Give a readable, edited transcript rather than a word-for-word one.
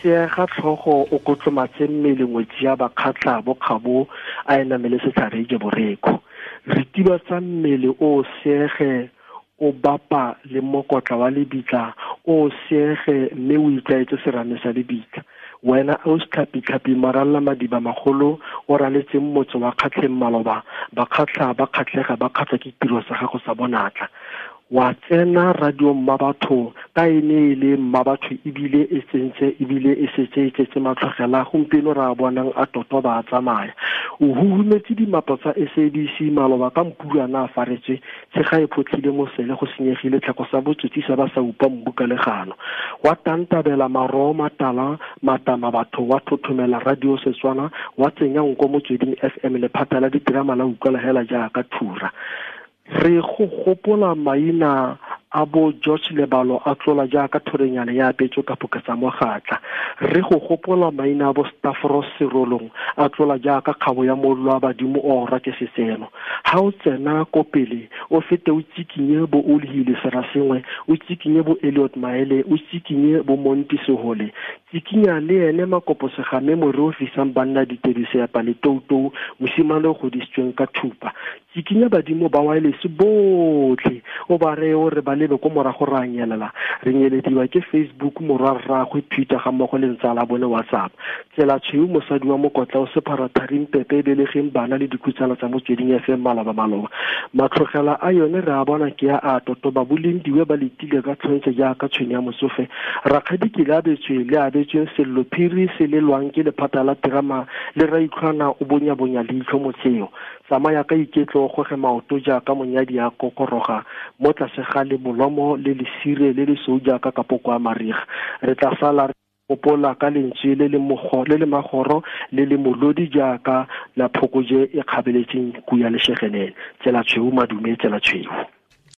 Seega tlhogo o kotlomatse mmele ngwetsi ya Bakgatla bo kgabo a e namele setlhare ije borekhu. Ritibatsa mmele o seege o bapa le mokotla wa lebitla o seege mme o itlwaetse serame sa lebitla. Wena o setlhapitlhapi maralla madiba magolo o raletseng motse wa Kgatlheng maloba, Bakgatla ba kgatlhega ba kgatlwa ke tiro sa gago sa bonatla. Wa tsena radio Mmabatho ka e ne e le Mmabatho ebile e tsentse ebile e setse e tletse matlhogela gompieno re a bonang a totoba a tsamaya. O huhumetse dimapo tsa SABC maloba ka mpulwana a faretswe tshega e photlhile mosele go senyegile tlhako sa botsotsi sa ba sa upa mbu ka legano. Wa tantabela maroo matala matama batho wa thothomela radio Setswana wa tsenya nko Motsweding FM lephata la diterama la utlwala hela jaaka thura. Re go gopola maina a bo George Lebalo a tlola jaaka thorenyana ya apetswe ka phoka tsa mogatla. Re go gopola maina a bo Stavros Serolong a tlola jaaka kgabo ya mollo wa badimo o orwa ke setseno. Ha o tsena ko pele o fete o tsikinye bo Olhile Serasengwe, o tsikinye bo Elliot Maele, o tsikinye bo Monti Sehole, tsikinya le ene Makopo Segame more o fisang banna ditedu seapa le toutou, mosimane o godisitsweng ka thupa. Tsikinya badimo ba wireless botlhe o ba reye o re ba lebe ko morago ra nyelela re nyelediwa ke Facebook morwa rraagwe Twitter ga mmogo le ntsala bone WhatsApp. Tsela tshweu mosadi wa mokotla o sephara tharing pepe e belegeng bana le dikhutsana tsa Motsweding FM maloba maloba. Matlhogela a yone re a bona ke a a totoba bolendiwe ba letile ka tlhontse jaaka tshwene ya motsofe. Rakgadi ke le abetswe le abetsweng sello phiri se lelwang ke lephata la terama le raitlhwana o bonyabonya leitlho motseo. Tsamaya ka iketlo o goge maoto jaaka monyadi a kokoroga mo tlase ga lebolomo le lesire le lesweu jaaka kapoko a mariga. Re tla sala re gopola ka lentswe le le mogo, le le magoro le le molodi jaaka la phokoje e kgabeletseng kuya leshegenene. Tsela tshweu madume, tsela tshweu.